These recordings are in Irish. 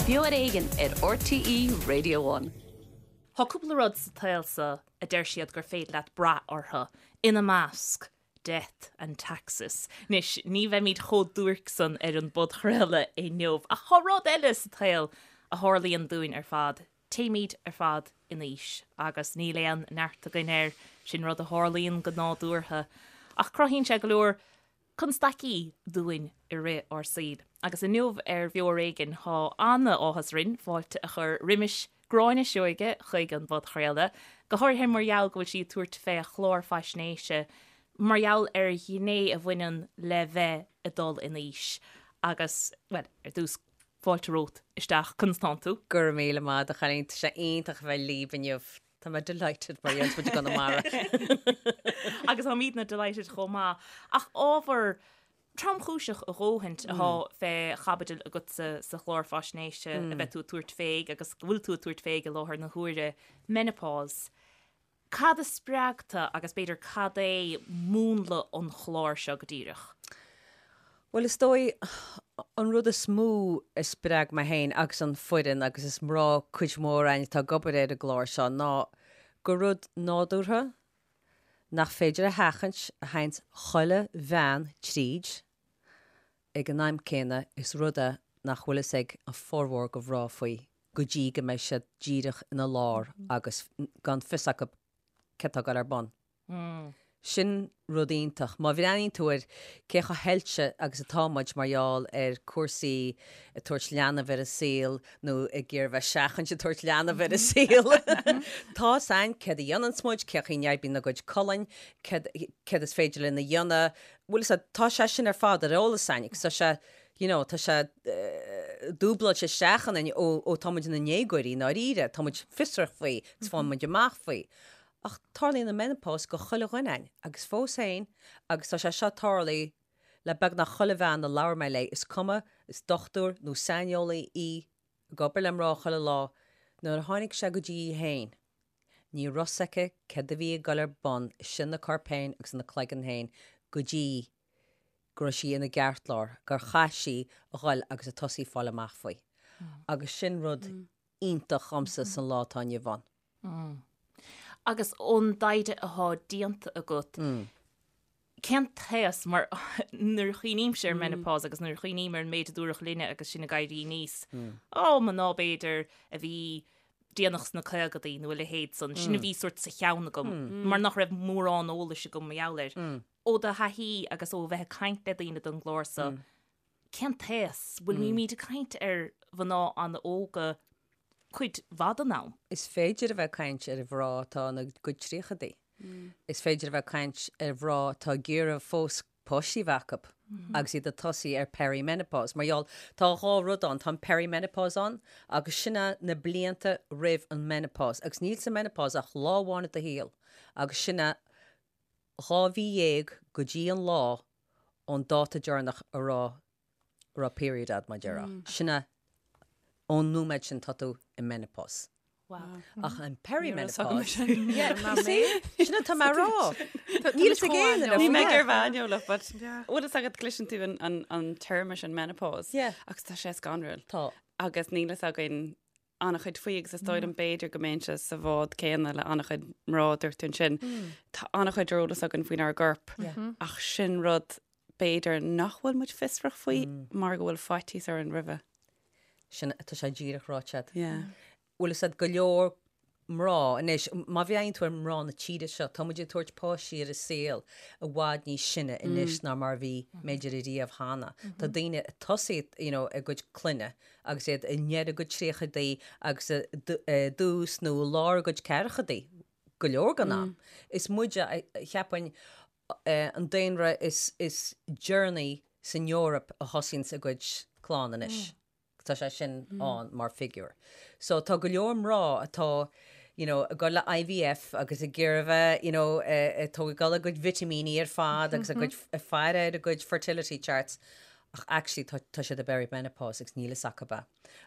Beo ar Éigean ar RTÉ Radio One. Tá cúpla rud sa tsaol seo a deir siad gur féidir leat brath orthu, ina measc, death and taxes. Anois, ní bheimid chomh duairc san ar an bpodchraoladh inniu, ach tá rud eile sa tsaol a tharlaíonn dúinn ar fad, téimid ar fad in aois agus níl aon neart againn air, sin rud a tharlaíonn go nádúrtha. Ach cruthaíonn sé go leor constaicí dúinn i rith ár saoil. Agus inniu ar Bheo ar Éigean tá an-áthas orainn fáilte a chur roimis Gráinne Seoige chuig an bpodchraoladh, go háirithe mar gheall go bhfuil sí ag tabhairt fé chlár faisnéise mar gheall ar ghné a bhaineann le bheith ag dul in aois. Agus, bhuel, ar dtús, fáilte romhat isteach, conas tánn tú? Go raibh míle maith agat a chailín, tá sé iontach a bheith libh inniu. Tá mé delighted mar a deireanns muid i gConamara. Agus táimidne delighted chomh maith. Ach ábhar tromchúiseach a dhóthaint atá fé chaibidil agatsa sa chlár faisnéise a bheidh tú ag tabhairt fé agus go bhfuil tú ag tabhairt fé i láthair na huaire, menopause. Cad a spreag tú agus b'fhéidir cad é múnla an chláir seo go díreach? Bhuel, is dóigh, an rud is mó a spreag mé féin agus an foireann, agus is mná cuid mhór againn atá ag obair ar an gclár seo, ná gur rud nádúrtha nach féidir a sheachaint a théanns chuile bhean tríd ag an am céanna, is rud é nach bhfuil fhios ag an formhór de mhná faoi go dtí go mbeidh siad díreach ina lár agus gan fios acu céard atá ag dul ar bun. Sin rud iontach. Má bhreathnaíonn tú ar cé chomh hoilte agus atá muid mar gheall ar cúrsaí ag tabhairt leanbh ar an saol nó ag iarraidh bheith seachaint ag tabhairt leanbh ar an saol, tá fhios a'inn céard a dhéananns muid, cé chaoi n-oibríonn ár gcuid colainn, céard céard is féidir linn a dhéanamh. Bhfuil fhios a'd, tá sé sin ar fad ar eolas a'inn agus tá sé, you know, tá sé dúbláilte isteach ionainn ó ó tá muid ina ndéagóirí i ndáiríre, tá muid fiosrach faoi agus faigheann muid amach faoi. Ach tarlaíonn an menopause go chuile dhuine a'inn, agus fós féin, agus tá sé seo tarlaithe le beagnach chuile bhean a labhair mé léi, is cuma is dochtúir nó saineolaí í, ag obair le mná chuile lá, nuair a tháinig sé go dtí í féin, ní raibh fhios aici céard a bhí ag dul ar bun istigh ina corp féin agus ina cloigeann féin go dtí go raibh sí ina gceartlár, gur chaith sí a dhul agus a tosaí fáil amach faoi. Agus sin rud iontach dhomsa san lá atá inniu ann. Agus ón dtaighde atá déanta agat, cén t-aos, mar nuair a chuimhnímse ar menopause agus nuair a chuimhním ar an méid a dúradh linne agus sinn ag éirí aníos, ó, mná b'fhéidir a bhí déanach sna caogadaí nó a leithéid san, sin a bhí sórt sa cheann agam, mar nach raibh mórán eolais agam mar gheall air. Ó do thaithí agus ó bheith ag caint le daoine don gclár so, Cén t-aos? Bhfuil muid ag caint ar mhná an-óga cuid mhaith den am? Is féidir a bheith ag caint ar mhná atá ina gcuid tríochadaí. Is féidir a bheith ag caint ar mhná atá ag iarraidh fós páistí a bheith acu agus iad ag tosaí ar perimenopause. Mar gheall, tá dhá rud ann, tá an perimenopause ann agus sin é na blianta roimh an menopause agus níl sa menopause ach lá amháin i do shaol agus sin é 12 mhí go dtí an lá ón dáta deireanach a raibh a raibh period a'd, mar a déarfá. Sin é, ón nóiméad sin tá tú i menopause. Wow. Ach an perimenopause. Yeah, you see? Sin atá mé a rá. Níl fhios ag éinne Ní mé gur bhean but bhfuil fhios agat cloiseann tú an téarma sin menopause. Yeah. Agus tá sé scanrúil. Tá. Agus níl fhios againn an-chuid faoi agus is dóigh liom b'fhéidir go mbeinnse sa bhád céanna le an-chuid mná dúirt tú ansin. Tá an-chuid ar eolas againn faoinár gcorp ach sin rud b'fhéidir nach bhfuil muid fiosrach faoi mar go bhfuil faitíos orainn roimhe. Sin tá sé díreach ráite agat. Yeah. Bhfuil fhios a'd go leor mná anois, má bhreathnaíonn tú ar mná na tíre seo, tá muid ag tabhairt páistí ar an saol i bhfad níos sine anois ná mar a bhí b'fhéidir ariamh cheana. Tá daoine ag tosaí you know, a gcuid clainne agus iad i ndeireadh a gcuid tríochadaí agus i dtús nó i lár a gcuid ceathrachaidí go leor den am. Is muide, cheapfainn, an daonra is deireanaí san Eoraip a thosaíonns a gcuid clann anois. Tá sé sin ann mar figiúr. So tá go leor mná atá you know, ag dul le IVF agus ag iarraidh bheith you know, ag tógáil a gcuid vitimíní ar fad agus a gcuid ag faire ar a gcuid fertility charts ach actually tá, tá siad i bperimenopause agus níl fhios acu é.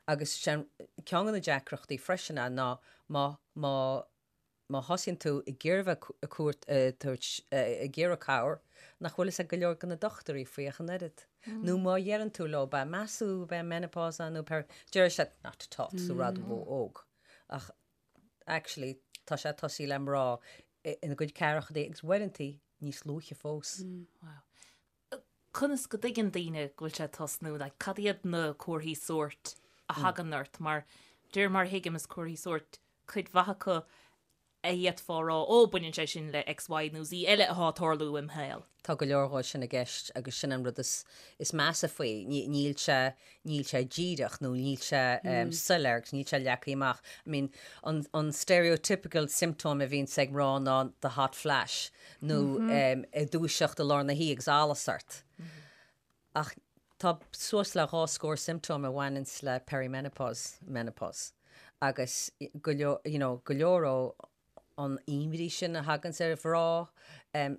Agus sin ceann de na deacrachtaí freisin é ná má, má. má thosaíonn tú ag iarraidh bheith ag cuairt, ag tabhairt, ag iarraidh cabhair, nach bhfuil fhios ag go leor de na dochtúirí faoi ach an oiread. Nó má dheireann tú leo, b'é meas tú b'é menopause é nó peri, déarfaidh siad, not at all, tá tú ró-óg. Ach actually tá sé ag tosaí le mná ina gcuid ceathrachaidí agus uaireantaí níos luaithe fós. Wow. Conas go dtuigeann daoine go bhfuil sé ag tosnú? Like, cad iad na comharthaí sóirt a thagann ort? Mar, de réir mar a thuigim, is comharthaí sóirt cuid mhaith acu a d'fhéadfá a rá, ó, baineann sé sin le X, Y nó Z eile atá ag tarlú im shaol. Tá go leor dhó sin i gceist agus sin an rud is, is measa faoi. Níl sé, níl sé díreach nó níl sé soiléir agus níl sé leagtha amach. I mean, an, an stereotypical symptom a bhíonns ag mná ná the hot flash nó ag dúiseacht i lár na hoíche agus allas ort. Ach tá suas le 2 scór symptom a bhaineanns le perimenopause, menopause agus go leor, you know, go leor ó an imní sin a thaganns ar mhná,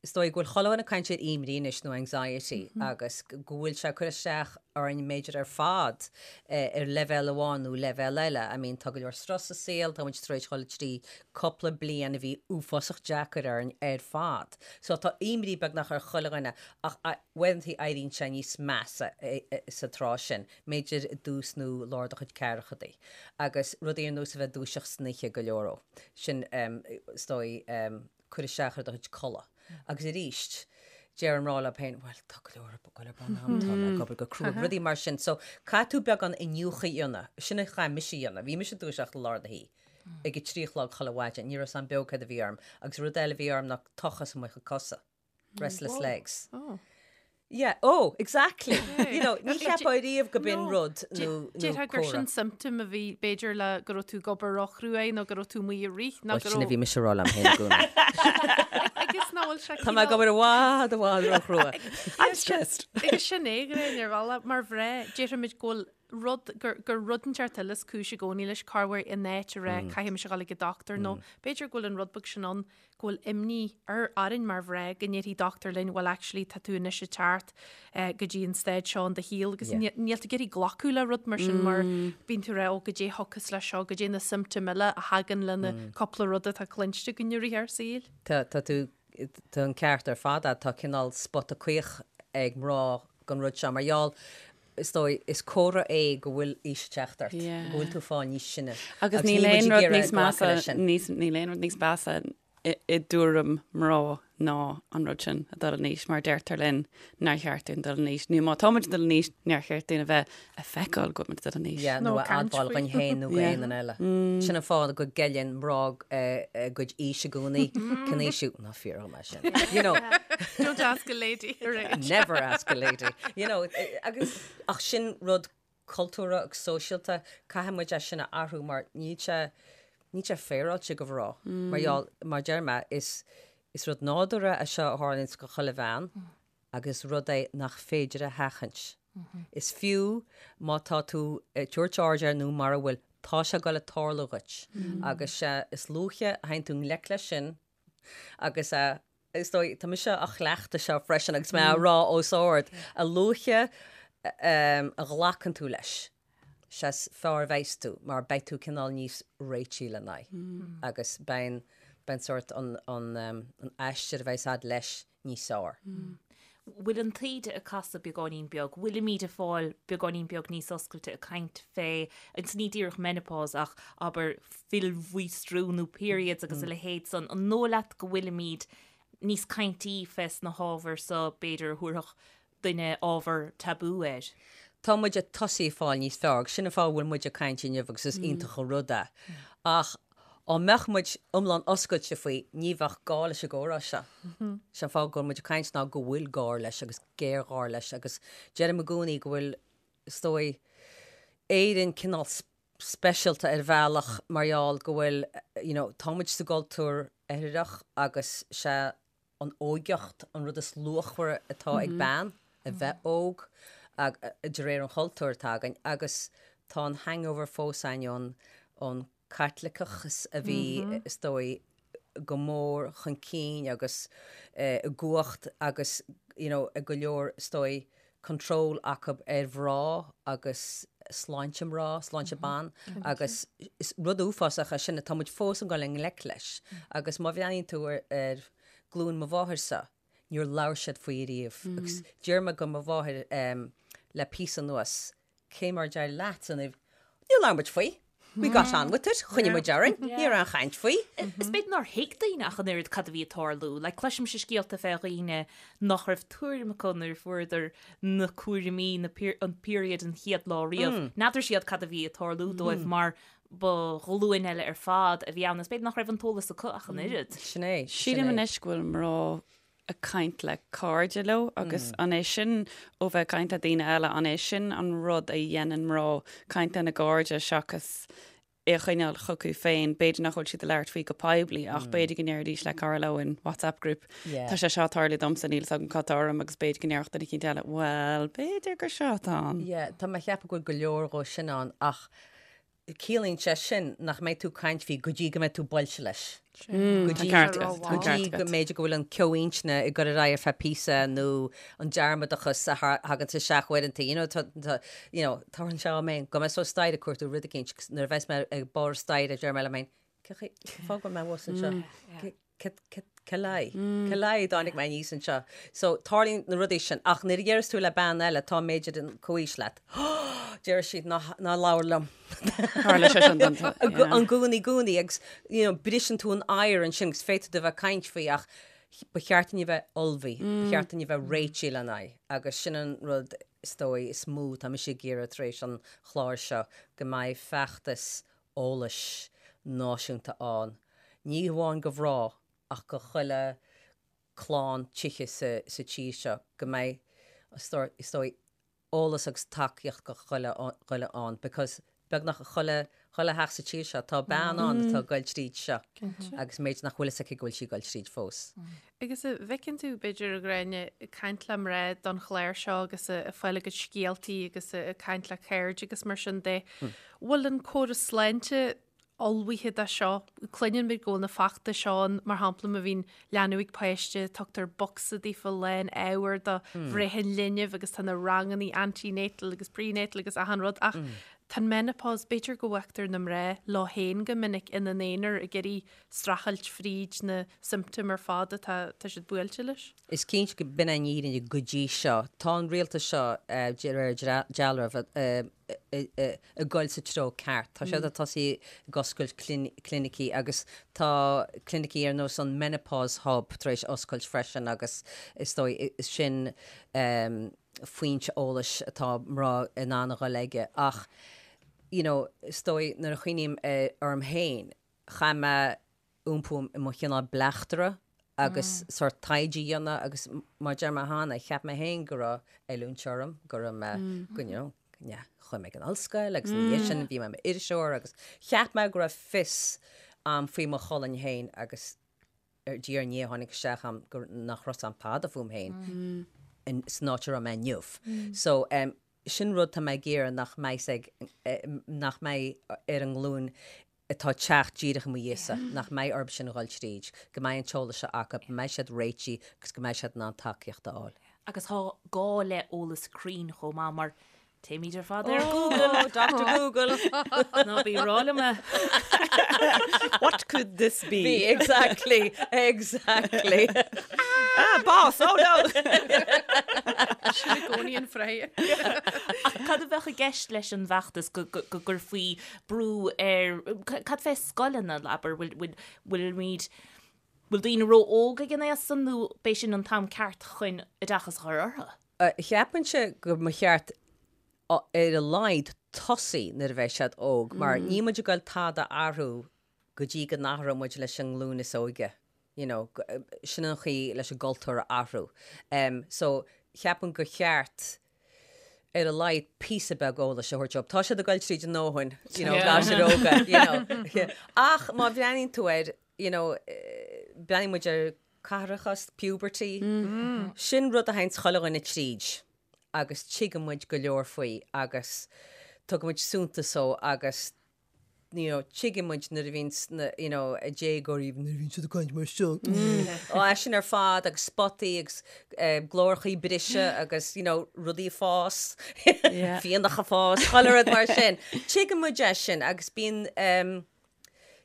Is dóigh go bhfuil chuile dhuine ag caint ar imní anois nó anxiety agus go bhfuil sé ag cur isteach orainn b'fhéidir ar fad ar leibhéal amháin nó leibhéal eile. I mean tá go leor strus sa saol, tá muid tar éis dhul trí cúpla bliain a bhí uafásach deacair orainn ar fad. So tá imní beagnach ar chuile dhuine ach uaireanta éiríonn sé níos measa sa tráth sin, b'fhéidir i dtús nó lár do chuid ceathrachaidí. Agus rudaí ar nós a bheith ag dúiseacht san oíche go leor ó. Sin is dóigh cur isteach ar do chuid codladh. Agus arís, deir mná leo féin, bhuel, tá go leor ag goil ar bun agam, tá mé ag obair go crua, rudaí mar sin. So, caithfidh tú beagán iniúchadh a dhéanamh. Sin a chaith mise a dhéanamh. Bhí mise ag dúiseacht i lár na hoíche ag a 3 a chlog chuile mhaidin. Ní raibh a fhios a'm beo céard a bhí orm. Agus rud eile a bhí orm ná tochas i mo chuid cosa. Restless legs. Oh. Yeah, oh, exactly. You know, ní cheapfá riamh go b'in rud nó nó Déarfá gur comhartha. sin symptom a bhí b'fhéidir le go raibh tú ag obair róchruaidh nó go raibh tú amuigh ag rith nó Bhuel, go sin a raibh bhí mise a rá liom féin i gcónaí. agus nach bhfuil sé Tá mé ag obair i bhfad, i bhfad róchrua. I'm stressed. Agus sin é Gráinne ar bhealach mar mhná déarfaimid go bhfuil rud gur gur rud inteacht eile is cúis i gcónaí leis corruair in áit a rá caithfidh mise a dhul ag an dochtúir nó b'fhéidir go bhfuil an rud beag sin ann go bhfuil imní ar orainn mar mhná go ndéarfaidh dochtúir linn bhuel actually tá tú anois ag teacht go dtí an staid seo in do shaol agus níl tú ag iarraidh glacadh le rud mar sin mar bíonn tú ag rá ó goidé a thiocfas leis seo, goidé na symptoim eile a thagann le na cúpla rud atá cluinste againn i rith ár saoil. Tá tá tú tá an ceart ar fad agat, tá cineál spota caoch ag mná don rud seo mar gheall is dóigh, is comhartha é go bhfuil aois ag teacht ort, go bhfuil tú ag fáil níos sine. Agus níl aon rud níos measa, níl aon rud níos measa i dtuairim mná ná an rud sin a dul in aois mar deirtear linn nár cheart dúinn dul in aois nó má táimid ag dul in aois nár cheart dúinn a bheith ag feiceáil go bhfuil muid ag dul in aois. Yeah, nó a admháil dhúinn féin nó go aon duine eile. Sin an fáth go gceileann mná a gcuid aois i gcónaí. Cén aois thú? Ná fiafraigh dhom é sin. You know. Don't ask a lady her age. Never ask a lady. You know, agus, ach sin rud cultúrtha agus sóisialta, caithfidh muid é sin a athrú mar níl sé, níl sé féaráilte go mhná. Mar gheall, mar deir mé, is, is rud nádúrtha é seo a tharlaíonns go chuile bhean agus rud é nach féidir a sheachaint. Is fiú má tá tú ag tabhairt aird air nó mara bhfuil, tá sé ag goil ag tarlú dhuit. Agus sea, is luaithe a théann tú i ngleic leis sin, Agus is dóigh, tá mise á chleachtadh seo freisin agus mé á rá os ard, a luaithe a ghlacann tú leis, sea is fearr a bheas tú mar beidh tú cineál níos réití lena aghaidh agus beidh an sórt an aistear a bheas a'd leis níos fearr. Bhfuil an taoide ag casadh beagáinín beag? Bhfuilimid ag fáil beagáinín beag níos oscailte ag caint fé, agus ní díreach menopause ach abair fuilmhaostriú nó periods agus a leithéid san. An dóigh leat go bhfuilimid níos caintí fés na hábhair so b'fhéidir a thabharfadh duine ábhar tabú air? Tá muid ag tosaí ag fáil níos fearr agus sin an fáth a bhfuil muid ag caint inniu agus is iontach an rud é. Ach Dá mbeadh muid iomlán oscailte faoi, ní bheadh gá leis an gcomhrá seo. Sé an fáth go bhfuil muid ag caint ná go bhfuil gá leis agus géarghá leis agus deirim i gcónaí go bhfuil, is dóigh, Éirinn cineál speisialta ar bhealach mar gheall go bhfuil, you know, tá muid sa gcultúr oirthearach agus sé an óigeacht an rud is luachmhaire atá ag bean, a bheith óg, de réir an chultúir atá againn, agus tá an hangover fós againn ón Caitliceachas a bhí, is dóigh, go mór chun cinn agus i gcumhacht agus, you know, ag go leor, is dóigh, control acu ar mhná agus. sláinte mná, sláinte ban agus is rud uafásach é sin atá muid fós ag dul i ngleic leis. Agus má bhreathnaíonn tú ar glúin mo mháthairse, níor labhair siad faoi ariamh. Agus deir mé go mo mháthair le píosa anuas, cé mar a d'éirigh leat an Níor labhair muid faoi. We got on with it, choinnigh muid orainn, ní raibh aon chaint faoi. Is b'fhéidir nár thuig daoine ach an oiread cad a bhí ag tarlú. Like, cloisimse scéalta fé dhaoine nach raibh tuairim acu nuair a fuaireadar na cúraimí, na, an period an chéad lá riamh. N'fheadar siad cad a bhí ag tarlú dóibh mar ba ghlúin eile ar fad a bhí ann. Is b'fhéidir nach raibh an t-eolas acu ach an oiread. Sin é, sin é. Sílim anois go bhfuil mná ag caint le cairde leo agus an é sin ó bheith ag caint le daoine eile, an é sin an rud a dhéanann mná, caint lena gcairde seachas é a choinneáil chucu féin, b'fhéidir nach bhfuil siad ag labhairt faoi go poiblí ach b'fhéidir go ndéarfaidís le cara leo in WhatsApp group, tá sé seo ag tarlú domsa, níl 'fhios agam cad tá orm agus b'fhéidir go ndéarfadh duine eicínt eile, bhuel, b'fhéidir gur seo atá ann. Yeah, tá mé ag ceapadh go bhfuil go leor dhó sin ann ach Ciallaíonn sé sin nach mbeidh tú ag caint faoi go dtí go mbeidh tú buailte leis. Go dtí go dtí go mb'fhéidir go bhfuil an ceo intinne ag dul ar aghaidh ar feadh píosa nó an dearmadachas a thagann isteach uaireanta, you know, tá, tá, you know, tarlaíonn sé dhom féin, go mbeidh suas staighre ag cuartú rud eicínt agus nuair a bheas mé ag barr staighre deir mé liom féin, cé chaoi, cén fáth go bhfuil mé thuas anseo? Cé le? Cé le a dtáinig mé aníos anseo? So, tarlaíonn na rudaí sin. Ach nuair a deireas tú le bean eile atá b'fhéidir an comhaois leat, deir siad ná ná labhair liom. Tharla sé sin don I gcónaí i gcónaí agus you know, briseann tú an oighear ansin agus féadfaidh tú a bheith ag caint faoi ach ba cheart dúinn a bheith ullmhaithe, ba cheart dúinn a bheith réitithe lena aghaidh agus sin an rud is dóigh is mó atá mise ag iarraidh tar éis an chláir seo, go mbeidh feachtas eolais náisiúnta ann, ní hamháin go mhná ach go chuile clann tithe sa tír seo, go mbeidh, is dóigh, eolas agus tacaíocht go chuile dhuine ann because beagnach chuile chuile theach sa tír seo tá bean ann atá ag goil tríd seo agus b'fhéidir nach bhfuil fhios aici go bhfuil sí ag goil tríd fós. Agus an bhfeiceann tú, b'fhéidir, a Ghráinne, ag caint le mná don chlár seo agus ag fáil a gcuid scéaltaí agus ag caint le cairde agus mar sin de, bhfuil an córas sláinte ullmhaithe do seo? Cluineann muid go bhfuil na feachtais seo ann, mar shampla má bhíonn leanbh ag páiste, tugtar bocsa daofa lán ábhair do bhreith an linbh agus tá na rangannaí antenatal agus prenatal agus achan rud ach tá an menopause, b'fhéidir go bhfágtar na mná leo féin go minic ina n-aonar ag iarraidh streachailt fríd na siomptóim ar fad atá tá siad buailte leis. Is cinnte go b'in an fhírinne go dtí seo. Tá an rialtas seo, de réir dealraimh, ag goil sa treo ceart. Tá siad ag tosaí ag oscailt clinicí agus tá clinicí ar nós an Menopause Hub tar éis oscailt freisin agus is dóigh sin foinse eolais atá mná in ann a dhul aige. Ach you know is dóigh nuair a chuimhním orm féin, chaith mé iompú i mo chineál bleachtaire agus sórt taighde a dhéanamh agus mar a deir mé cheana, cheap mé féin go raibh oiliúint orm, go raibh mé, go, you know, yeah, chuaigh mé ag an ollscoil agus ina dhiaidh sin bhí mé i m'iriseoir agus cheap mé go raibh fios a'm faoi mo cholainn féin agus ar diaidh ar ndiaidh tháinig isteach a'm go, nach raibh 'fhios a'm tada fúm féin in, san áit a raibh mé inniu. So, em, sin rud tá mé ag iarraidh nach mbeidh ag, nach mbeidh ar an nglúin atá ag teacht díreach i mo dhiaidhse, nach mbeidh orthu sin a dhul tríd, go mbeidh an t-eolas seo acu, go mbeidh siad réitithe agus go mbeidh siad in ann tacaíocht a fháil. Agus tá gá le eolas cruinn chomh maith mar téimid ar fad ar Google. Oh, Doctor Google! Ná bí ag rá liom é. What could this be? Be, exactly, exactly. Ah, boss, oh no! Sin i gcónaí an freagra. Ach cad a bheadh i gceist leis an bhfeachtas go gcuirfí brú ar, cad fé scoileanna, abair, bhfuil, bhfuilimid, bhfuil daoine ró-óg ag an aos san nó b'é sin an t-am ceart chun oideachas a chur orthu? Cheapfainnse go mba cheart ar a laghad tosaí nuair a bheidh siad óg mar níl muid ag goil tada a athrú go dtí go n-athróidh muid leis an nglúin is óige. you know, sin an chaoi leis an gcultúr a athrú. So, cheapfainn gur cheart ar a laghad píosa beag eolais a thabhairt dóibh. Tá siad ag goil tríd a ndóthain, you know, gasúir óga, you know. Ach má bhreathnaíonn tú air, you know, breathnaíonn muid ar caithreachas, puberty, sin rud a théanns chuile dhuine tríd agus tuigeann muid go leor faoi agus tugann muid suntas dó agus. you know, tuigeann muid nuair a bhíonn na, you know, déagóirí, nuair a bhíonn siad ag caint mar seo, ó é sin ar fad agus spotaí agus eh, glórachaí ag briseadh agus, you know, rudaí ag fás, fiannach ag fás, chuile rud mar sin. Tuigeann muid é sin agus bíonn, um,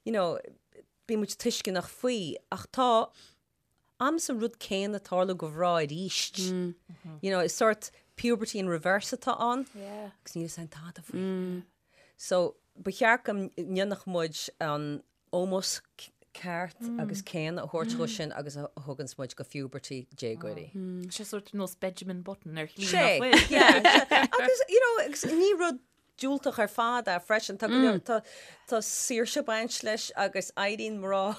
you know, bíonn muid tuisceanach faoi ach tá amas an rud céanna ag tarlú go mhná arís. You know, is sort puberty in reverse atá ann. Yeah. Agus níl a fhios againn tada faoi. So, ba cheart go ndéanfadh muid an ómós ceart agus céanna a thabhairt dhó sin agus a thuganns muid go puberty déagóirí. Sé sort nós Benjamin Button ar shlí Sé, nach bhfuil. yeah. Agus, you know, agus ní rud diúltach ar fad é freisin. Tá go leor, tá, tá saoirse ag baint leis agus éiríonn mná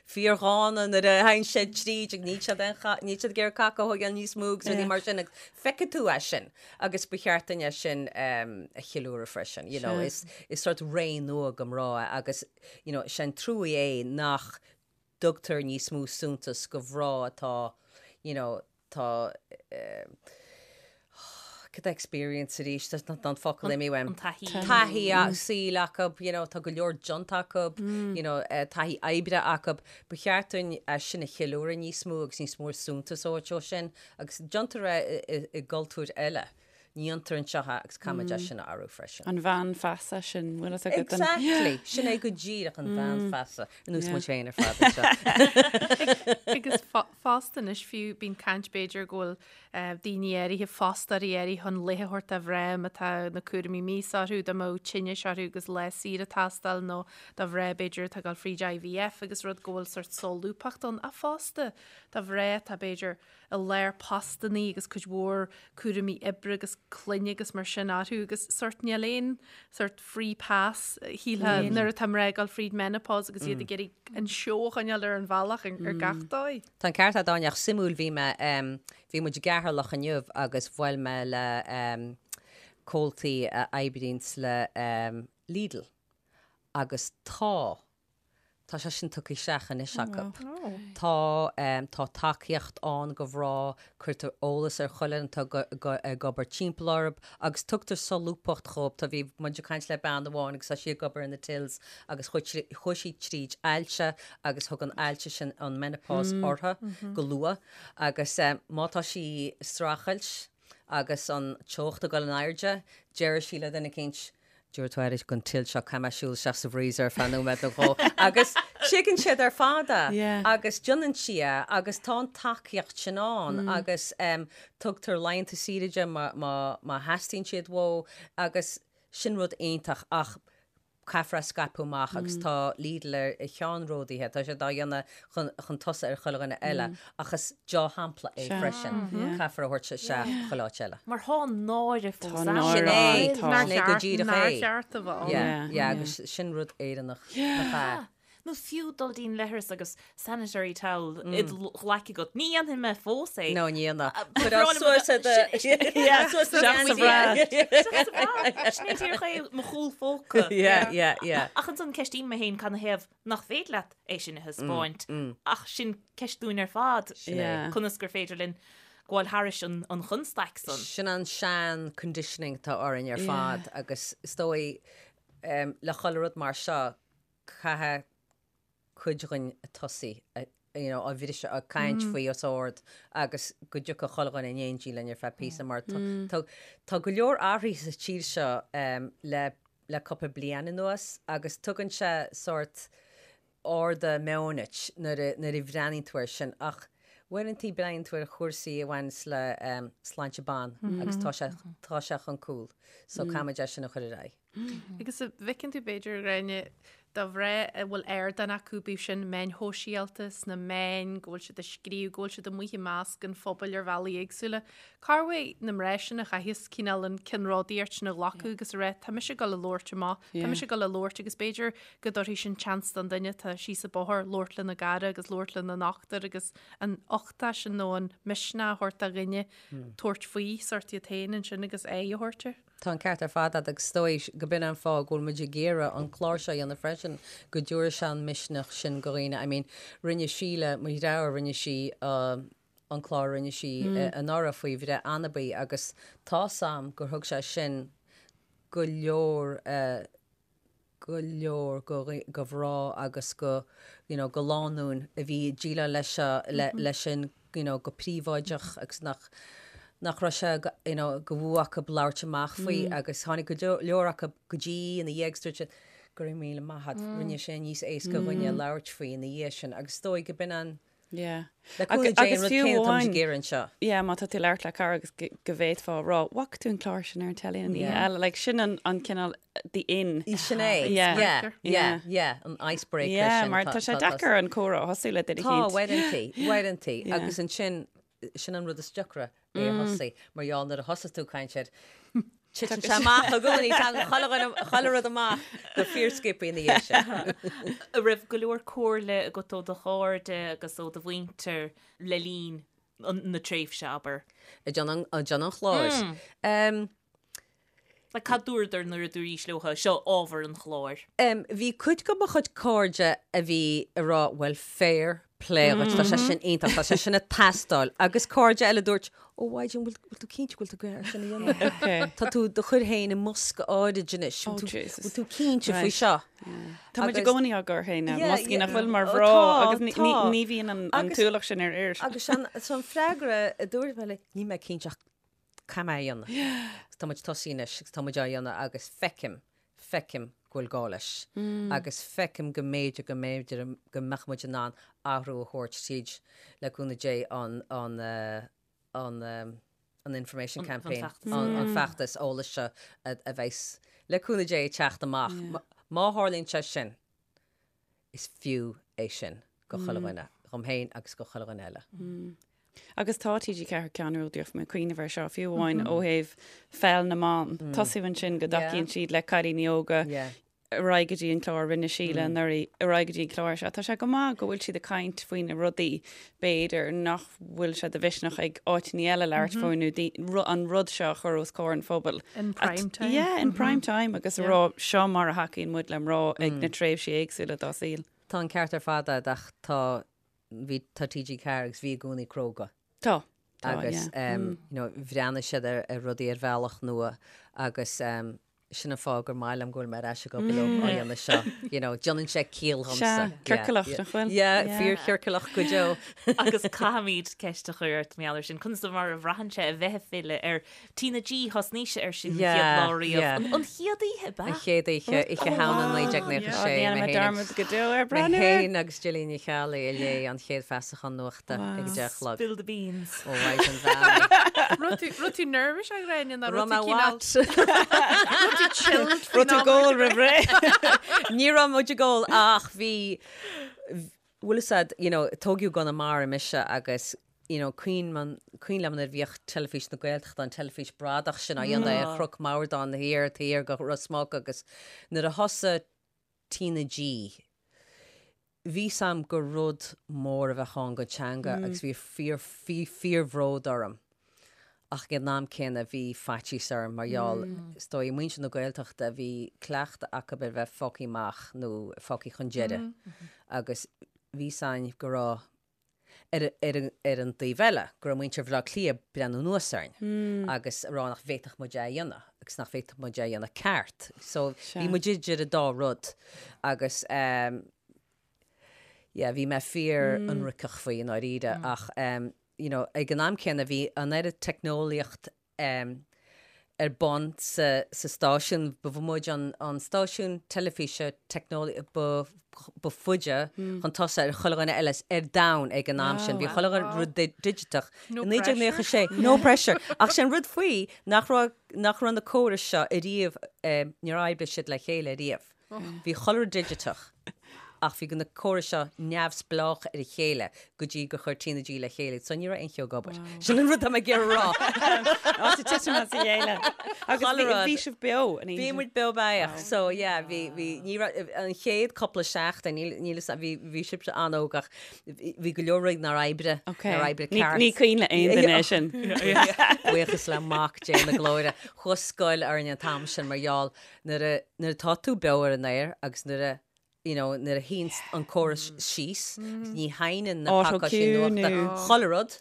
fíordhána nuair a théann siad tríd agus níl siad aon cha, níl siad ag iarraidh caca a thógáil níos mó agus rudaí mar sin agus feicfidh tú é sin agus ba cheart dúinn é sin a cheiliúradh freisin. You know, is, is sort ré nua go mná é agus, you know, sé an truaí é nach dtugtar níos mó suntas go mhná atá, you know, tá cad é experience arís, tá an focal imithe uaim. An taithí. Taithí saoil acu, you know, tá go leor déanta acu, you know, taithí oibre acu. Ba cheart dúinn é sin a cheiliúradh níos mó agus níos mó suntas a thabhairt dó sin agus déantar é i gcultúir eile. Ní dhéantar anseo é agus caithfimid é sin a athrú freisin. An bhean feasa sin, bhfuil fhios agat? Exactly! Sin é go díreach an bhean feasa. Ar nós muid féin ar fad anseo. Agus fosta anois fiú bíonn caint b'fhéidir go bhfuil daoine áirithe, fostóirí áirithe chun laetha a thabhairt do mhná má tá na cúraimí míosa orthu, dá mbeadh tinnis orthu agus lá saoire ag teastáil nó do mhná b'fhéidir atá ag dul fríd IVF agus rud go bhfuil sort solúbthacht ann. Ach fosta do mhná atá b'fhéidir i lár postannaí agus cuid mhór cúraimí oibre agus clainne agus mar sin orthu agus sort níl aon sort free pass shílfeá nuair atá mná ag dul fríd menopause agus iad ag iarraidh an seó a choinneáil ar an bhealach ar gach dóigh. Tá an ceart agat Áine ach suimiúil bhí mé bhí muid i gCeatharlach inniu agus bhuail mé le comhaltaí a oibríonns le Lidl agus tá Tá sé sin tugtha isteach anois acu. Tá, tá tacaíocht ann go mhná, cuirtear eolas ar chuile dhuine atá ag obair timpeall orthu agus tugtar solúbthacht dhóibh. Tá, bhí muid ag caint le bean amháin agus tá sí ag obair in the tills agus chuaigh sí tríd ailse agus thug an ailse sin an menopause uirthi go luath agus má tá sí ag streachailt agus an teocht ag dul in airde, deir sí le duine eicínt, Tabharfaidh tú aire don till seo, caithfidh mé siúl isteach sa bhfreezer ar feadh nóiméad nó dhó. Agus tuigeann siad ar fad é. Agus déanann sí é agus tá an tacaíocht sin ann agus tugtar laethanta saoire di má theastaíonn siad uaithi agus sin rud iontach ach caithfear é a scaipeadh amach agus tá Lidl ar cheannródaithe, tá siad á dhéanamh chun chun tosaigh ar chuile dhuine eile ach is deá-shampla é freisin. Caithfear a thabhairt isteach chuile áit eile. Mar tá an náire fós ann. Sin é, sin é go díreach é. Nár cheart a bheith ann. Yeah, yeah, agus sin rud Éireannach nach ea? Nó fiú dul dtí'n leithreas agus sanitary towel i do ghlaic agat. Ní dhéanfaidh mé fós é. No, ní dhéanfaidh. Cuir á suas i do... Suas sa bhra. Sin é díreach é mo chúl phóca. Yeah, yeah, yeah. Ach ansan ceistím mé féin canathaobh nach féidir leat é sin a thaispeáint ach sin ceist dúinn ar fad, conas gur féidir linn gabháil thairis an chonstaic san. Sin an sean conditioning atá orainn ar fad agus is dóigh le chuile rud mar seo caithfidh cuid againn tosaí you know, á bhriseadh, ag caint faoi os ard agus go dtiocfadh chuile dhuine in éindí linn ar feadh píosa mar tá go leor athraithe sa tír seo le le cúpla bliain anuas agus tugann sé sórt ardú meoin duit nuair a nuair a bhreathnaíonn tú air sin ach uaireanta breathnaíonn tú ar chúrsaí a bhaineanns le sláinte ban agus tá sé tá sé chun cúil so caithfimid é sin a chur ar aghaidh. Agus an bhfeiceann tú b'fhéidir, a Ghráinne, do mhná a bhfuil ardán acu, bíodh sin meáin shóisialta, sna meáin, go bhfuil siad ag scríobh, go bhfuil siad amuigh i measc an phobail ar bhealaí éagsúla. Cá bhfuil na mná sin a chaitheas cineál an ceannródaíocht sin a ghlacadh agus a rá, tá mise ag dul a labhairt amach, tá mise ag dul a labhairt agus b'fhéidir go dtabharfaidh sin seans don duine atá síos an bóthar labhairt lena gcara agus labhairt lena ndochtúir agus an uchtach sin nó an misneach a thabhairt do dhuine tabhairt faoi sórt iad féin ansin agus aghaidh a thabhairt air. Tá an ceart ar fad agat agus is dóigh go b'in an fáth go bhfuil muid ag iarraidh an clár seo a dhéanamh freisin, go dtabharfaidh sé an misneach sin go dhaoine. I mean, rinne Síle, mo dheartháir, rinne sí an clár a rinne sí anuraidh faoi bhreith anabaí agus tá's a'm gur thug sé sin go leor. go leor go go mhná agus go you know go lánúin a bhí ag déileáil leis seo le leis sin you know go príobháideach agus nach nach raibh sé go you know go bhfuath acu labhairt amach faoi agus tháinig go leor acu go dtí ina dhiaidh agus dúirt siad go raibh míle maith agat rinne sé níos éasca dhúinne labhairt faoi ina dhiaidh sin agus is dóigh go b'in an Yeah. Le cúnamh Dé an rud céanna atá muid ag iarraidh anseo. Yeah, má tá tú ag labhairt le cara agus go bhféadfá a rá, bhfaca tú an clár sin ar an teilí an oíche eile, like sin an an cineál the in. Sin é. Yeah. Yeah, yeah, yeah, an icebreaker Yeah, sin. mar tá sé deacair an comhrá a thosú le duine Tá, eicínt. uaireantaí, uaireantaí. Agus ansin, sin an rud is deacra é a thosaí, mar gheall nuair a thosaigh tú ag caint air, titeann sé amach i gcónaí, tagann chuile dhuine, chuile rud amach go fíorsciobtha ina dhiaidh sin. An raibh go leor comhairle agat ó do chairde agus ó do mhuintir le linn na tréimhse, abair? Ag déanamh an chláir. Like, cad dúradar nuair a dúraís leo, seo ábhar an chláir? Bhí cuid de mo chuid cairde a bhí ag rá, bhuel, fair play dhuit, tá sé sin iontach, tá sé sin ag teastáil. Agus cairde eile a dúirt, ó Mhaighdean, bhfuil bhfuil tú cinnte go bhfuil tú ag iarraidh sin a dhéanamh? Okay. Tá tú do chur féin i mbosca áirid anois, Oh, bhfuil tú Jesus. bhfuil tú cinnte faoi Right. seo? Tá muid i Agus- gcónaí á gcur féin i Yeah, mboscaí nach yeah. bhfuil mar Oh, mhná tá, agus ní- tá. ní ní bhíonn an an Agus- t-ualach sin ar fhir. Agus an so an freagra a dúirt mé le, níl mé cinnte ach Caithfidh mé a dhéanamh. Agus tá muid tosaithe anois agus tá muid á dhéanamh agus feicim, feicim go bhfuil gá leis. Agus feicim go mb'fhéidir, go mb'fhéidir go mbeadh muid in ann athrú a thabhairt tríd, le cúnamh Dé, an, an, an, an information campaign, an feachtas eolais seo a bheas, le cúnamh Dé, ag teacht amach. Má tharlaíonn sé sin, is fiú é sin go chuile dhuine, dhom féin agus go chuile dhuine eile. Agus tá TG4 ceannródaíoch, mé ag cuimhneamh air seo, fiú amháin ó thaobh pheil na mban. Tosú ansin go dtacaíonn siad le cailíní óga ar aghaidh go dtí an clár a rinne Síle anuraidh, ar aghaidh go dtí an clár seo. Tá sé go maith go bhfuil siad ag caint faoi na rudaí, b'fhéidir, nach bhfuil sé de mhisneach ag áiteanna eile labhairt faoi nó an rud seo a chur os comhair an phobail. In prime time. Yeah, in prime time agus a rá seo mar a thacaíonn muid le mná ag na tréimhsí éagsúla dá saol. Tá an ceart ar fad agat ach tá, bhí, tá TG4 agus bhí i gcónaí cróga. Tá. Tá, Agus, yeah. you know, bhreathnaigh siad ar, ar rudaí ar bhealach nua agus, Sin an fáth gur maith liom go bhfuil mé ar ais ag obair leo á dhéanamh seo. You know, déanann sé ciall dhomsa. Sea, ciorcalach, nach bhfuil? Yeah, fíorchiorcalach go deo. Agus caithfimid ceist a chur ort mar gheall air sin. Conas mar a bhraitheann sé a bheith ag filleadh ar TnaG, thosnaís air sin an chéad lá riamh. An chéad oíche, ab ea? An chéad oíche, Oíche Shamhna 1996. Ní dhéanfaidh mé dearmad go deo ar Mé breathnú air. féin agus Gillian Ní Cheallaigh a léigh an chéad feasachán nuachta ag a 10 a chlog. Spill the beans. Ó, Mhaighdean Mheáin. Raibh tú, raibh tú nervous a Ghráinne nó Raibh raibh mé tú cineál, what? raibh tú chilled faoin Raibh tú am ag ól roimh ré. Ní raibh muid ag ól ach bhí, bhfuil fhios a'd, you know, tógadh i gConamara mise agus, you know, cuimhin man, cuimhin liom nuair a bhíodh Teilifís na Gaeltachta, an teilifís bradach sin á dhéanamh ar Chnoc Mordáin thiar, thiar go Ros Muc agus nuair a thosaigh TnaG, Bhí 's a'm gur rud mór a bheadh ann don teanga agus bhí fíor, bhí fíorbhród orm. Ach ag an am céanna bhí faitíos orm mar gheall, is dóigh, muintir na Gaeltachta, bhí cleachtadh acu ar bheith fágtha amach nó fágtha chun deiridh agus bhí 's a'inn go raibh, Ar ar an taobh eile, go raibh muintir Bhaile Átha Cliath ag breathnú anuas orainn agus ag rá nach bhféadfadh muid é a dhéanamh agus nach bhféadfadh muid é a dhéanamh ceart. So bhí muid idir an dá rud agus yeah, bhí mé fíor ionraiceach faoi i ndáiríre ach you know, ag an am céanna bhí an oiread teicneolaíocht ar bun sa stáisiún. Ba muid an stáisiún teilifíse teicneolaí ba ba faide chun tosaigh ar chuile dhuine eile ar domhan ag an am sin. Bhí chuile rud digiteach i 1996. No pressure. Ach sé an rud faoi nach raibh nach raibh na córais seo ariamh, níor oibrigh siad le chéile ariamh. Bhí chuile rud digiteach ach bhí na córais seo neamhspleách ar a chéile go dtí gur chuir TnaG le chéile iad so ní raibh aon cheo ag obair. Sin an rud tá mé ag iarraidh a rá. Áit ag titim as a chéile. Agus Chuile bhí rud. bhí sibh beo an oíche Bhí sin. muid beo beathach so yeah bhí bhí ní raibh an chéad cúpla seachtain níl níl fhios a'm bhí bhí sibhse an-óg ach bhí bhí go leor rudaí nár oibrigh Ok. nár oibrigh Ní ceart. ní cuimhin le aon duine é sin. Buíochas le Mac Dé na Glóire. Chuaigh scoil orainn an t-am sin mar gheall Nuair a, nuair atá tú beo ar an aer agus nuair a, you know, nuair a shuíonn an córas síos, ní sheinneann na pacáistí Autocue nuachta nó- chuile rud.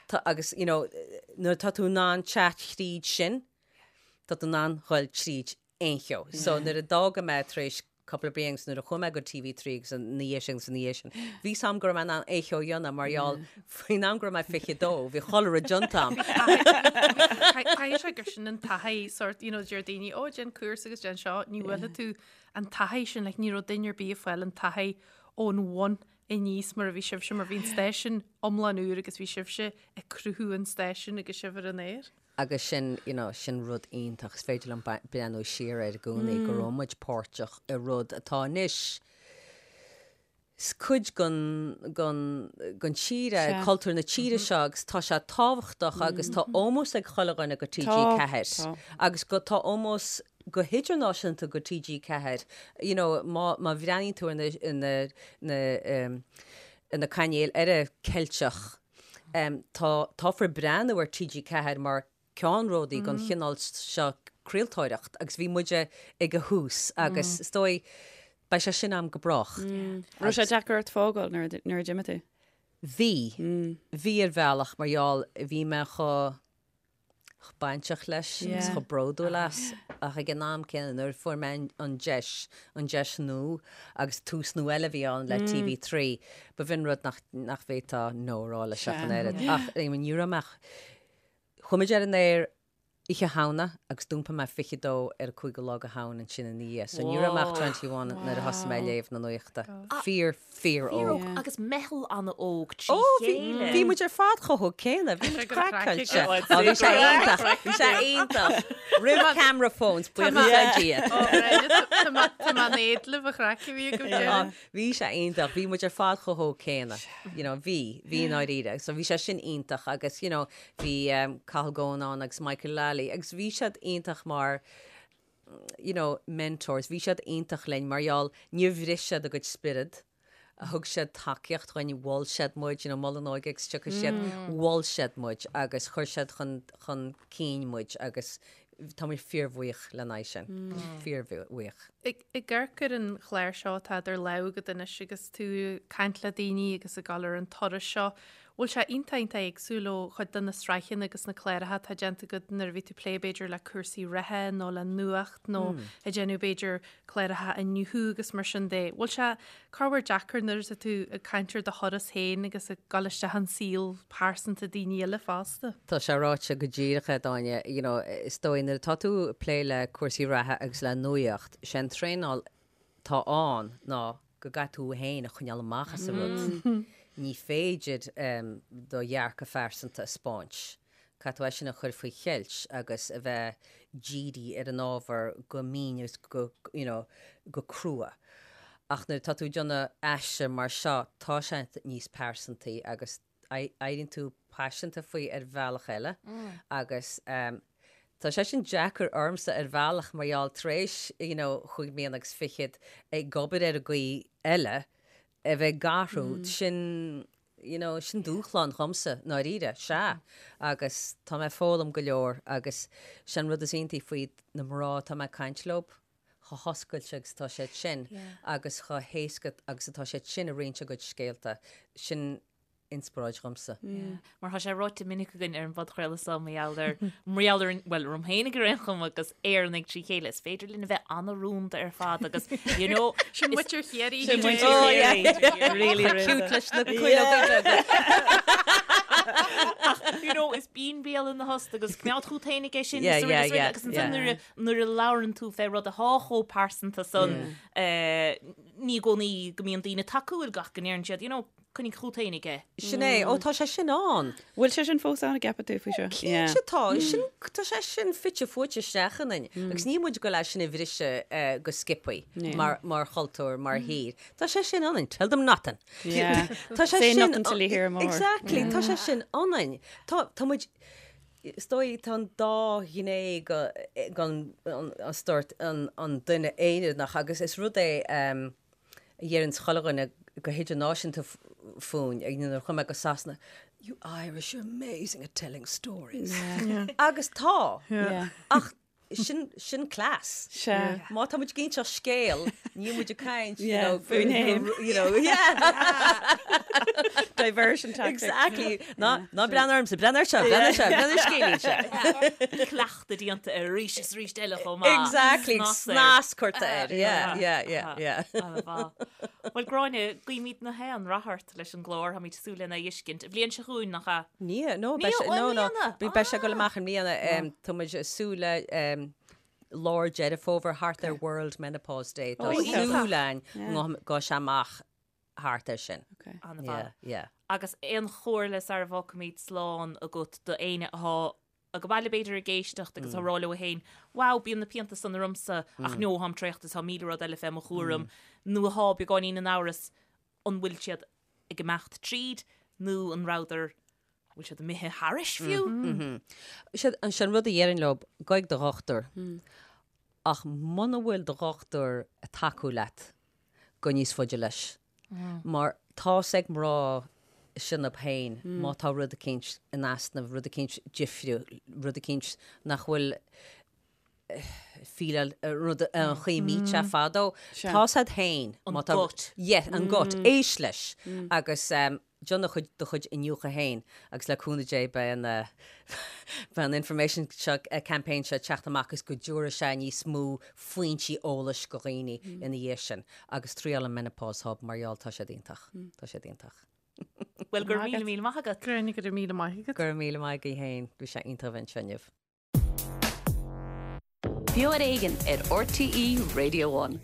Tá, agus, you know, nuair atá tú in ann teacht thríd sin, tá tú in ann dhul tríd aon cheo. So nuair a d'fhága mé tar éis. cúpla bliain agus nuair a chuaigh mé go TV3 agus ina dhiaidh sin agus ina dhiaidh sin, bhí 's a'm go raibh mé in ann é a dhéanamh mar gheall faoin am go raibh mé 22, bhí chuile rud déanta a'm. Caithfidh sé gur sin an taithí sort, you know, deir daoine, ó déan cúrsa agus déan seo, ní bhfuil tú an taithí sin, like, ní raibh duine ar bith ag fáil an taithí ón bhun aníos mar a bhí sibhse, mar bhí an stáisiún iomlán úr agus bhí sibhse ag cruthú an stáisiúin agus sibh ar an aer. Agus sin, you know, sin rud iontach, is féidir liom breathnú siar air i gcónaí go raibh muid páirteach i rud atá anois, is cuid den, den, den tír é, cultúr na tíre seo agus tá sé tábhachtach agus tá ómós ag chuile dhuine go TG4 agus go, tá ómós go hidirnáisiúnta go TG4, you know, má, má bhreathnaíonn tú ar na, na, na, ar na cainéil eile Ceilteach, Tá, táthar ag breathnú ar TG4 mar ceannródaí don chineál seo craoltóireacht agus bhí muide ag a thús agus is dóigh beidh sé sin a'm go brách. Raibh sé deacair ort fágáil nuair a d'imigh tú? Bhí. Bhí ar bhealach mar gheall bhí mé chomh chomh bainteach leis agus chomh bródúil as ach ag an am céanna nuair a fuair mé an deis, an deis nua agus tús nua eile a bhí ann le TV3, ba bh'in rud nach, nach bhféadfá no a rá leis ach an oiread. Ach I mean ní raibh mé ach, chuaigh muid ar an aer Oíche Shamhna agus d'iompaigh mé 22 ar an 5ú lá de Shamhain ansin ina dhiaidh so ní raibh mé ach 21 nuair a thosaigh mé ag léamh na nuachta. Fíor, fíor óg. Agus meitheal an-óg trí chéile. Bhí muid ar fad chomh hóg céanna, bhí muid craiceáilte. Ó bhí sé iontach, bhí sé iontach. Roimh camera phones, buíochas le Dia. Tá mé in éad libh an chraic a bhí agaibh deireadh. Bhí sé iontach, bhí muid ar fad chomh hóg céanna. You know, bhí, bhí i ndáiríre. So bhí sé sin iontach agus, you know, bhí Cathal Goan ann agus Michael Lally agus bhí siad iontach mar, you know, mentors, bhí siad iontach linn mar gheall níor bhris siad a gcuid spiorad, thug siad tacaíocht dhuinn, mhol siad muid, you know, Mol an Óige agus tiocfaidh siad, mhol siad muid agus chuir siad chun, chun cinn muid agus tá muid fíorbhuíoch lena aghaidh sin, fíorbhuíoch. Ag amharc ar an chlár seo atá idir lámha agat anois agus tú ag caint le daoine agus ag dul ar an turas seo, Bhfuil sé iontach iontach éagsúil ó chuid de na sraitheanna agus na cláracha atá déanta agat nuair a bhí tú ag plé b'fhéidir le cúrsaí reatha nó le nuacht nó ag déanamh b'fhéidir cláracha Inniu agus mar sin de. Bhfuil sé corruair deacair nuair atá tú ag caint ar do thuras féin agus ag dul isteach in saol pearsanta daoine eile fosta? Tá sé ráite go díreach a'd Áine, you know, is dóigh nuair atá tú ag plé le cúrsaí reatha agus le nuacht, sé an traenáil atá ann ná go gcaithfidh tú féin a choinneáil amach as an rud. Ní féidir do dhearcadh phearsanta a 'spáint. Caithfidh tú é sin a chur faoi cheilt agus a bheith dírithe ar an ábhar go mín agus go, you know, go crua. Ach nuair atá tú ag déanamh aistear mar seo, tá sé níos pearsantaí agus éiríonn tú paiseanta faoi ar bhealach eile agus tá sé sin deacair ormsa ar bhealach mar gheall tar éis you know chúig mbliana agus fichead ag obair ar an gcaoi eile a bheith ag athrú sin you know sin dúshlán dhomsa ndáiríre, sea agus tá mé ag foghlaim go leor agus sin an rud is iontaí faoi na mná atá mé ag caint leo chomh hoscailte agus atá siad sin agus chomh héasca agus atá siad sin ag roinnt a gcuid scéalta, sin inspioráid dhomsa. Mar tá sé ráite minic againn ar an bpodchraoladh seo mar gheall ar, mar gheall ar, bhuel, orm féin ar aon chuma agus Éireannaigh trí chéile, is féidir linn a bheith an-rúnda ar fad agus, you know, Sin muintir Chiarraí. Sin muintir Chiarraí. Really rúnda. Cute leis na cuileoga beaga. Ach, you know, is bíonn béal ina thost agus coimeád chút féin aige sin is araile is araile agus ansan nuair a Nuair a labhrann tú fé rud athá chomh pearsanta san, ní i gcónaí go mbíonn daoine tacúil gach go ndeireann siad, you know, coinnigh chút féin aige. Sin é. Ó, tá sé sin ann. Bhfuil sé sin fós ann, an gceapann tú faoi seo? Cinnte tá. Sin, tá sé sin fite fuaite isteach ionainn. Agus níl muid ag goil é sin a bhriseadh go sciobthaí mar, mar chultúr, mar thír. Tá sé sin ionainn. Tell them nothing. Tá sé sin. Say nothing till you hear more. Exactly. Tá sé sin ionainn. Tá, tá muid, Is dóigh, tá an dá ghné den sórt an duine Éireannach agus is rud é a dheireann chuile dhuine go hidirnáisiúnta fúinn, nuair a chuaigh mé go Sasana, you Irish are amazing at telling stories. Agus tá! Ach. Sin, sin cleas. Sea. Má tá muid ag inseacht scéal, níl muid ag caint, you Yeah, know, fúinn fhéin. you know, yeah. Diversion tactic. Exactly. Ná, ná breathnaigh ormsa, breathnaigh air seo, breathnaigh air seo, breathnaigh ar scéilín seo. Cleachtadh déanta air arís is arís eile chomh maith. Exactly. Snas air. Snas curtha air. Yeah, yeah, yeah, yeah. An-mhaith. Bhuel, Gráinne, guímid na haon rath ort leis an gclár, táimid ag súil lena fheiscint. An bhliain seo chugainn, nach ea? Ní, no, Ní, beidh sé, ó, i no, no, mbliana. beidh sé ag dul amach i mbliana. Tá muid ag súil le lár Deireadh Fómhair thart ar World Menopause Day. Tá Ó, iontach. súil againn go mbeidh sé amach thart ar sin. Okay. An-mhaith. Yeah, yeah. Agus aon chomhairle sara bhfágfaimid slán agat do éinne atá ag baile b'fhéidir ag éisteacht agus á rá leo féin, wow, bíonn na pianta san ormsa ach no, táim traochta is tá 1000 rud eile fé mo chúram, nó atá beagáinín in amhras an bhfuil siad ag imeacht tríd nó an rabhadar, an bhfuil siad imithe thairis fiú? Sin an rud a dhéarfainn leo, gabh chuig do dhochtúir. Ach muna bhfuil do dhochtúir ag tacú leat, gabh níos faide leis. Mar tá's ag mná iontu féin má tá rud eicínt in easnamh, rud eicínt difriúil, rud eicínt nach bhfuil fíleáil rud an chaoi a mbíodh sé fadó. Tá's agat féin. An gut. Yeah, an gut. Éist leis. Agus déan do chuid do chuid iniúchadh féin agus le cúnamh Dé beidh an beidh an information seo campaign seo ag teacht amach agus go dtabharfaidh sé níos mó foinsí eolais go dhaoine ina dhiaidh sin. Agus triail an Menopause Hub mar gheall tá siad iontach. Tá siad iontach. Bhuel, go raibh míle míle maith agat. Gráinne, go raibh míle maith agat. Go raibh míle maith agaibh féin. Bhí sé iontach a bheith anseo inniu. Beo ar Éigean ar RTÉ Radio One.